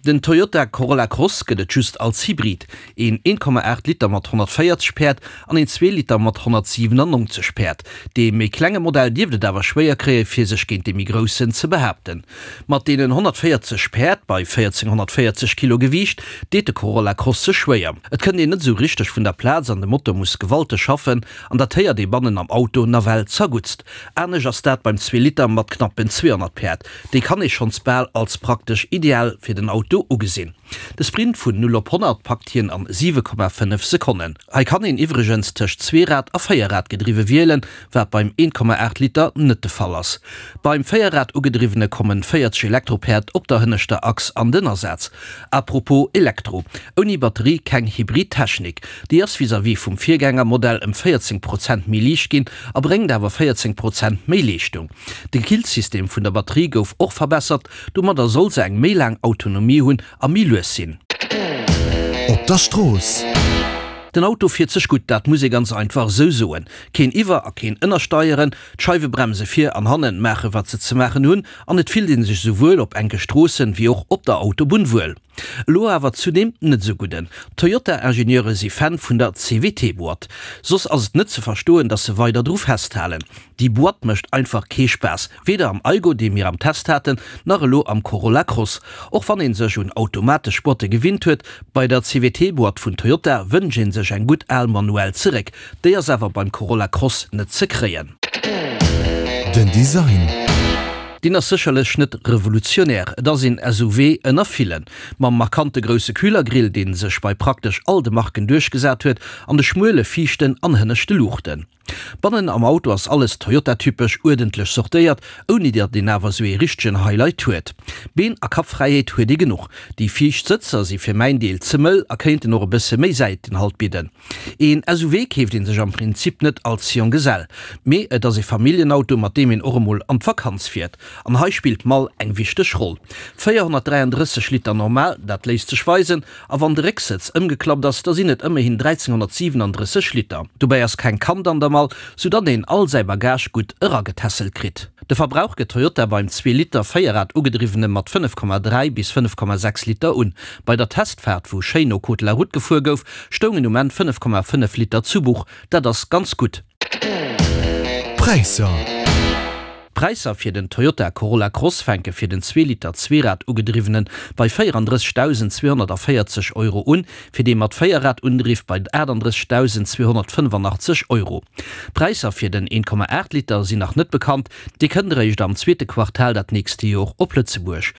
Den Toyota Corolla Cross gëtt et just als Hybrid, een 1,8 Liter mat 140 Päerd an een 2 Liter mat 197 Päerd. Dee méi klenge Modell dierft et awer schwéier kréie fir sech géint dee méi groussen ze behaapten. Mat deenen 140 Päerd bei 1440 Kilo Gewiicht deet de Corolla Cross sech schwéier. Et kënnt een net esou richteg vun der Plaz an de Motor muss gewalteg schaffen an dat héiert ee bannen am Auto nawell zerguttst. Anescht ass dat beim 2 Liter mat knappen 200 Päerd. Déi kann ee schonns bal als praktesch ideal fir den Auto ugesinn. De Sprint vun 0 op 100 packt hien an 7,5 Sekonnen. Hei kann een iwwregens tëscht Zweerad a Véierrad-gedriwwe wielen, wat beim 1,8 Liter net de Fall ass. Beim Véierrad ugedriwwene kommen 40 Elektropäerd op der hënneschter Achs an den Asaz. A propos Elektro, ouni Batterie keng Hybrid-Technik. Déi ass vis-à-vis vum Virgängermodell ëm 14 Prozent méi liicht ginn a bréngt awer 14 Prozent méi Leeschtung. De Killsystem vun der Batterie gouf och verbessert, Domadder soll se eng méi laang Autonomie hunn a méi lues sinn. Op der Strooss. Den Auto fiert sech gutt, dat muss ee ganz einfach esou soen. Keen Iwwer a keen Ënnersteieren, d'Scheiwebremse vir an hannen maache wat se ze maachen hunn an et fillt ee sech esouwuel op enke Stroossen wéi och op der Autobunn wuel. Elo awer zu deem net esou gudden. Toyota-Ingenieure si Fan vun der CVT-Boîte. Soss ass et net ze verstoen, dass se weider dru festhalen. Déi Boîte mécht einfach kee Spaass, weder am Aygo, dee mir am Test haten, nach elo am Corolla Cross. Och wann een sech un automatesch Boîte gewinnt huet, bei der CVT-Boîte vun Toyota wënscht een sech eng gutt al manuell zeréck. Déi ass awer beim Corolla Cross net ze kréien. Den Design. Deen ass sécherlech net revolutionär, et ass een SUV ënner villen. Mam markante grousse Kühlergrill, dee sech bei praktesch all de Marken duerchgesat huet, an de schmuele viischten an hënneschte Luuchten. Bannen am Auto ass alles Toyota-typesch uerdentlech sortéiert, ouni datt een awer sou ee richtegen Highlight huet. Been a Kappfräiheet huet ee genuch. Déi viischt Sëtzer si fir mäin Deel ze mëll a kéinten och e bësse méi Säitenhalt bidden. Een SUV keeft ee sech am Prinzip net als Jonggesell, mee et ass ee Familljenauto, mat deem een och emol an d'Vakanz fiert. An hei spillt d'Mall eng wichteg Roll. 433 Liter normal, dat léisst sech weisen, A wann de Récksëtz ëmgeklappt ass, da sinn et ëmmerhin 1337 Liter. Dobäi ass keng Kand an der Mall, sou datt een all säi Bagage gutt eragetässelt kritt. De Verbrauch gëtt Toyota beim Zwee-Liter Véierrad ugedriwwene mat 5,3 bis 5,6 Liter un. Bei der Testfaart, wou schéin no Code de la Route gefuer gouf, stoungen um Enn 5,5 Liter zu Buch. Dat ass ganz gutt. D'Präisser. D'Präisser fir den Toyota Corolla Cross fänke fir den Zweeliter Zweerad-ugedriwwene bei 34.240 Euro un, fir dee mat Véierrad-Undriff bei 38.285 Euro. D'Präisser fir den 1,8 Liter sinn nach net bekannt, dee kënnt eréischt am zweete Quartal dat nächste Jor op Lëtzebuerg.